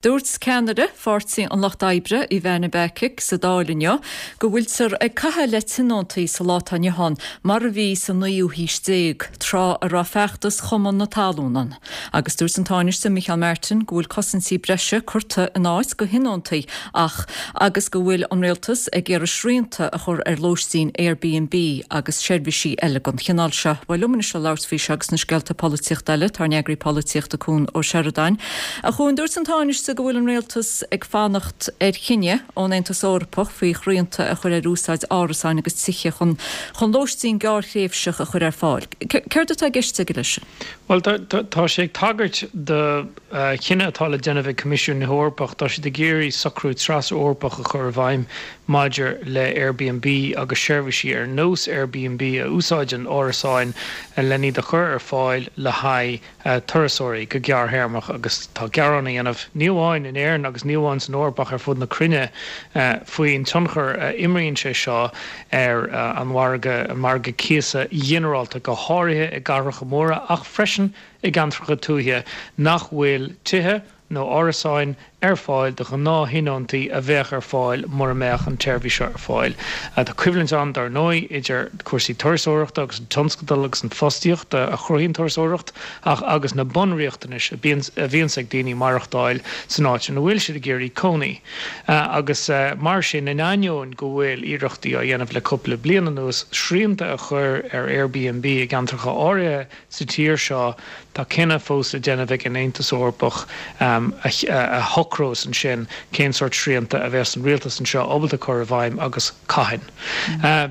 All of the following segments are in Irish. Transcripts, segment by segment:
Dúirt ceannaire Pháirtí an Lucht Oibre, Ivana Bacik, sa Dáil inniu go bhfuiltear ag caitheamh le tionóntaí sa lá atá inniu ann mar a bhí sa naoú haois déag, tráth a raibh feachtas Chumann na Talún ann. Agus dúirt an Tánaiste Micheál Martin go bhfuil cosaintí breise curtha in áit do thionóntaí ach agus go bhfuil an Rialtas ag iarraidh srianta a chur ar lóistín Airbnb agus seirbhísí eile den chineál seo. Bhuel, liom anois le labhairt faoi seo agus na scéalta polaitíochta eile, tá ár n-eagraí polaitíochta Cuan Ó Seireadáin. A Chuain, dúirt an Tánaiste go bhfuil an Rialtas ag fanacht ar chinneadh ón Aontas Eorpach faoi shrianta a chur ar úsáid árasáin agus tithe chun chun lóistín gearrthréimhseach a chur ar fáil. Céard atá i gceist aige leis sin? Bhuel, tá sé ag tagairt do chinneadh atá le déanamh ag Coimisiún na hEorpach. Tá siad ag iarraidh socrú tras-Eorpach a chur i bhfeidhm maidir le Airbnb agus seirbhísí ar nós Airbnb a úsáideann árasáin len iad a chur ar fáil le haghaidh turasóirí go gearrthéarmach agus tá gearán á dhéanamh, ní amháin in Éirinn agus ní amháin san Eoraip ach ar fud na cruinne, faoin tionchar a imríonn sé seo ar an mhargadh, an margadh cíosa ghinearálta, go háirithe i gcathracha móra ach freisin i gceantracha tuaithe nach bhfuil tithe nó árasáin ar fáil do ghnáth-thionóntaí a bheadh ar fáil mura mbeadh an tseirbhís seo ar fáil. Tá coimhlint ann, dar ndóigh, idir cúrsaí turasóireachta agus an tionscadal agus an fostaíocht a chruthaíonn turasóireacht ach agus na bunriachtanais a bhíonns ag daoine maireachtáil san áit ina bhfuil siad ag iarraidh cónaí. Agus mar sin, in ainneoin go bhfuil iarrachtaí á dhéanamh le cúpla bliain anuas srianta a chur ar Airbnb i gceantracha áirithe sa tír seo, tá cinneadh fós le déanamh ag an Aontas Eorpach a shocrós ansin cén sórt srianta a bheas an rialtas anseo ábalta cur i bhfeidhm agus cathain.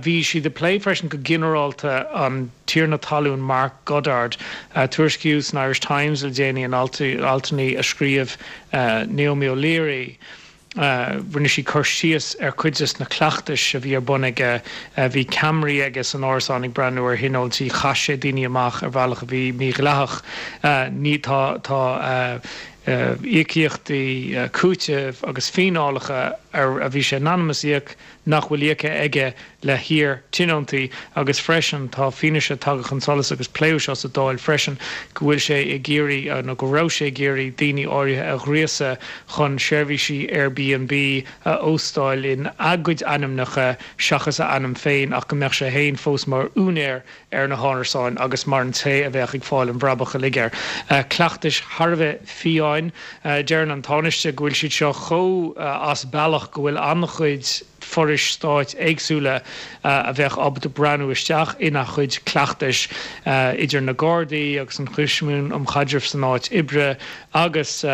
Bhí siad ag plé freisin go ginearálta an tiarna talún Mark Goddard. Tuairiscíodh san Irish Times le déanaí in altanna a scríobh Naomi O'Leary, Rinne sí cur síos ar chuid de na cleachtais a bhí ar bun aige. Bhí ceamaraí aige san árasán ag breathnú ar thionóntaí. Chaith sé daoine amach ar bhealach a bhí mídhleathach. Ní, tá, tá íocaíochtaí cúitimh agus fíneálacha ar a bhí sé in ainm is íoc nach bhfuil íoctha aige le hiar-tionóntaí agus freisin tá fianaise tagtha chun solais agus pléadh seo sa Dáil freisin go bhfuil sé ag iarraidh nó go raibh sé ag iarraidh daoine áirithe a ghríosadh chun seirbhísí Airbnb a óstáil in a gcuid ainmneacha seachas a ainm féin ach go mbeadh sé féin fós mar úinéir ar na hárasáin agus mar an té a bheadh ag fáil an bhrabach uilig air. Cleachtais thar a bheith fiáin. Deireann an Tánaiste go bhfuil siad seo chomh as bealach go bhfuil an-chuid forais stáit éagsúla a bheadh ábalta breathnú isteach ina chuid cleachtais, idir na Gardaí agus an Choimisiún um Chaidreamh san Áit Oibre agus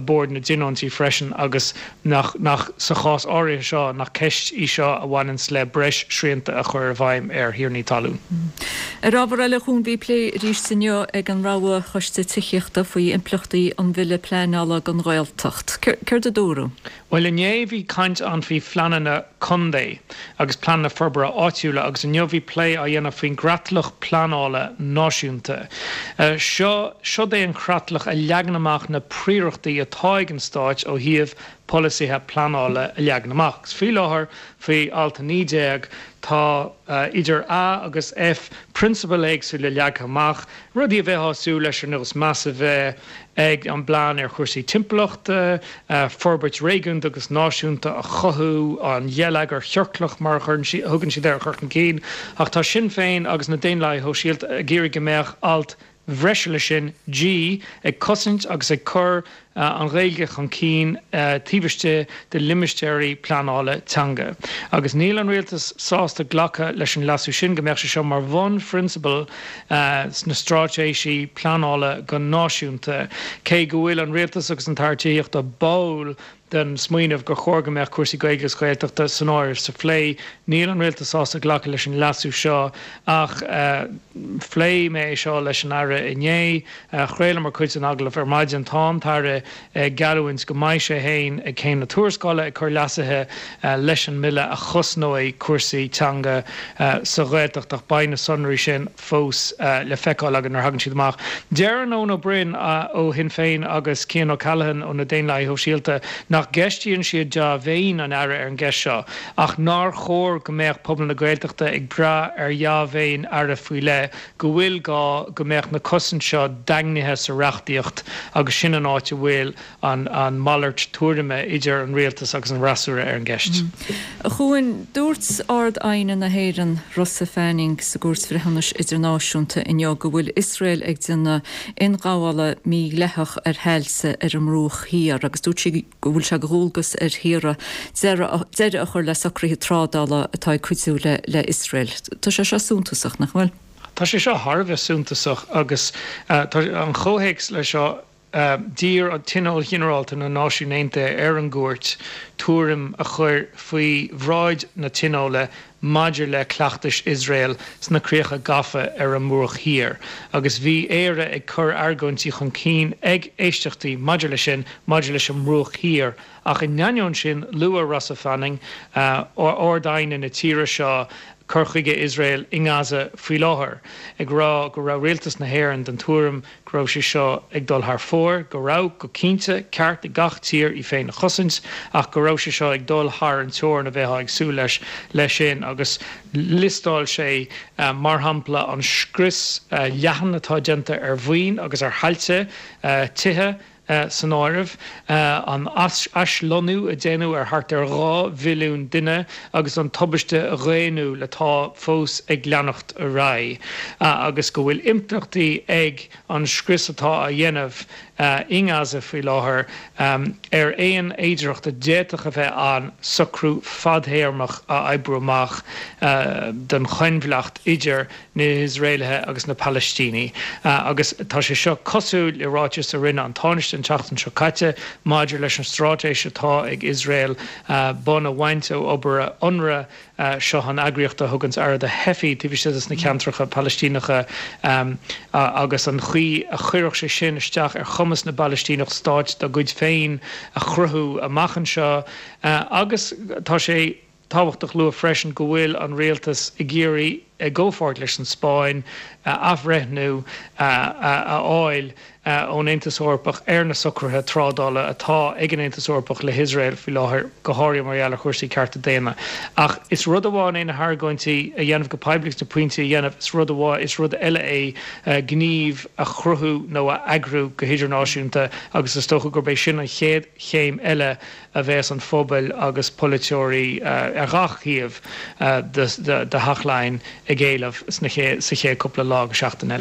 Bord na dTionóntaí freisin agus nach, nach, sa chás áirithe seo, nach ceist í seo a bhaineanns le breis srianta a chur i bhfeidhm ar thiarnaí talún. Ar ábhar eile, a Chuain, bhí plé arís inniu ag an Rogha Choiste Tithíochta faoi impleachtaí an Bhille Pleanála don Ghaeltacht. Céard a dúradh? Bhuel, inné bhí caint ann faoi phleananna contae agus pleananna forbartha áitiúla agus inniu bhí plé á dhéanamh faoin gcreatlach pleanála náisiúnta. Seo, siod é an chreatlach a leagann amach na príorachtaí atá ag an stáit ó thaobh polasaithe pleanála a leagan amach. Agus faoi láthair, faoi alt 19, tá idir A agus F prionsabail éagsúla leagtha amach, rudaí a bheifeá ag súil leis ar nós meas a bheith ag an bplean ar chúrsaí timpeallachta, forbairt réigiúnda agus náisiúnta a chothú, an gheilleagar chiorclach mar a thugann siad air a chur chun cinn. Ach tá Sinn Féin agus na Daonlathaithe Shóisialta ag iarraidh go mbeadh alt bhreise leis sin, G, ag cosaint agus ag cur an Ghaeilge chun cinn taobh istigh de limistéirí pleanála teanga. Agus níl an Rialtas sásta glacadh leis an leasú sin, go mbeadh sé seo mar bhunphrionsabal sna stráitéisí pleanála go náisiúnta. Cé go bhfuil an Rialtas agus an tAire Tithíochta báúil den smaoineamh gur chóir go mbeadh cúrsaí Gaeilge agus Gaeltachta san áireamh sa phlé, níl an Rialtas sásta glacadh leis an leasú seo. Ach phléigh mé é seo leis an Aire inné. Chraolamar cuid den agallamh ar maidin. Tá an tAire ag geallúint go mbeidh sé féin ag Céim na Tuarascála ag cur leasuithe leis an mbille a chosnóidh cúrsaí teanga sa Ghaeltacht ach beidh na sonraí sin fós le feiceáil againn nuair a thagann siad amach. Deireann Eoin Ó Broin ó Shinn Féin agus Cian O'Callaghan ó na Daonlathaithe Shóisialta nach gceistíonn siad dea-mhéin an Aire ar an gceist seo ach nár chóir go mbeadh pobal na Gaeltachta ag brath ar dhea-mhéin Aire faoi leith go bhfuil gá go mbeadh na cosaint seo daingnithe sa reachtaíocht agus sin an áit a bhfuil. bhfuil an mhalairt tuairime idir an rialtas agus an fhreasúra ar an gceist. A Chuain, dúirt Ard-Aighne na hÉireann, Rosa Fanning, sa gCúirt Bhreithiúnais Idirnáisiúnta inniu go bhfuil Iosrael ag déanamh ionghabhála mídhleathach ar thailte ar an mBruach Thiar agus dúirt sí go bhfuil sé de dhualgas ar thíortha deireadh a chur le socruithe trádála atá ag cuidiú le hIosrael. Tá sé seo suntasach, nach bhfuil? Tá sé seo thar a bheith suntasach agus tá an comhthéacs leis seo, d'iarr Tionól Ginearálta na Náisiún Aontaithe ar an gCúirt tuairim a chur faoi bhráid na Tionóla maidir le cleachtais Iosrael sna críocha gafa ar an mBruach Thiar agus bhí Éire ag cur argóintí chun cinn ag éisteachtaí maidir leis sin maidir leis an mBruach Thiar ach in ainneoin sin luaigh Rosa Fanning, Ard-Aighne na tíre seo, cur chuige Iosrael i nGaza faoi láthair, ag rá go raibh rialtas na hÉireann den tuairim go raibh sé seo ag dul thar fóir, go raibh, go cinnte, ceart ag gach tír í féin a chosaint, ach go raibh sé seo ag dul thar an teorainn a bheifeá ag súil leis leis sin agus liostáil sé, mar shampla, an scrios leathan atá déanta ar mhaoin agus ar thailte, tithe, san áireamh, an aislonnú a déanadh ar thart ar 2 mhilliún duine agus an tubaiste dhaonnúil atá fós ag leanacht ar aghaidh, agus go bhfuil impleachtaí ag an scrios atá á dhéanamh i nGaza faoi láthair ar aon fhéidearthacht a d'fhéadfadh a bheith ann socrú fadthéarmach a oibriú amach don choinbhleacht idir na hIosraelaithe agus na Palaistínigh agus tá sé seo cosúil le ráiteas a rinne an Tánaiste an tseachtain seo caite maidir leis an straitéis atá ag Iosrael bonn a bhaint ó obair Unrwa, seo an eagraíocht a thuganns aire do theifigh taobh istigh de na ceantracha Palaistíneacha agus an chaoi a chuirfeadh sé sin isteach ar chumas na bPalaistíneach stáit dá gcuid féin a chruthú amach anseo agus tá sé tábhachtach lua freisin go bhfuil an rialtas ag iarraidh, i gcomhpháirt leis an Spáinn, athbhreithniú a fháil ón Aontas Eorpach ar na socruithe trádála atá ag an Aontas Eorpach le hIosrael faoi láthair, go háirithe mar gheall ar chúrsaí cearta daonna. Ach is rud amháin é na hargóintí a dhéanamh go poiblí agus na pointí a dhéanamh, is rud amháin, is rud eile é gníomh a chruthú nó a eagrú go hidirnáisiúnta agus is dócha gurb é sin an chéad chéim eile a bheas an phobal agus polaiteoirí ar gach thaobh de Theach Laighean ag éileamh sa chéad cúpla lá go seachtain eile.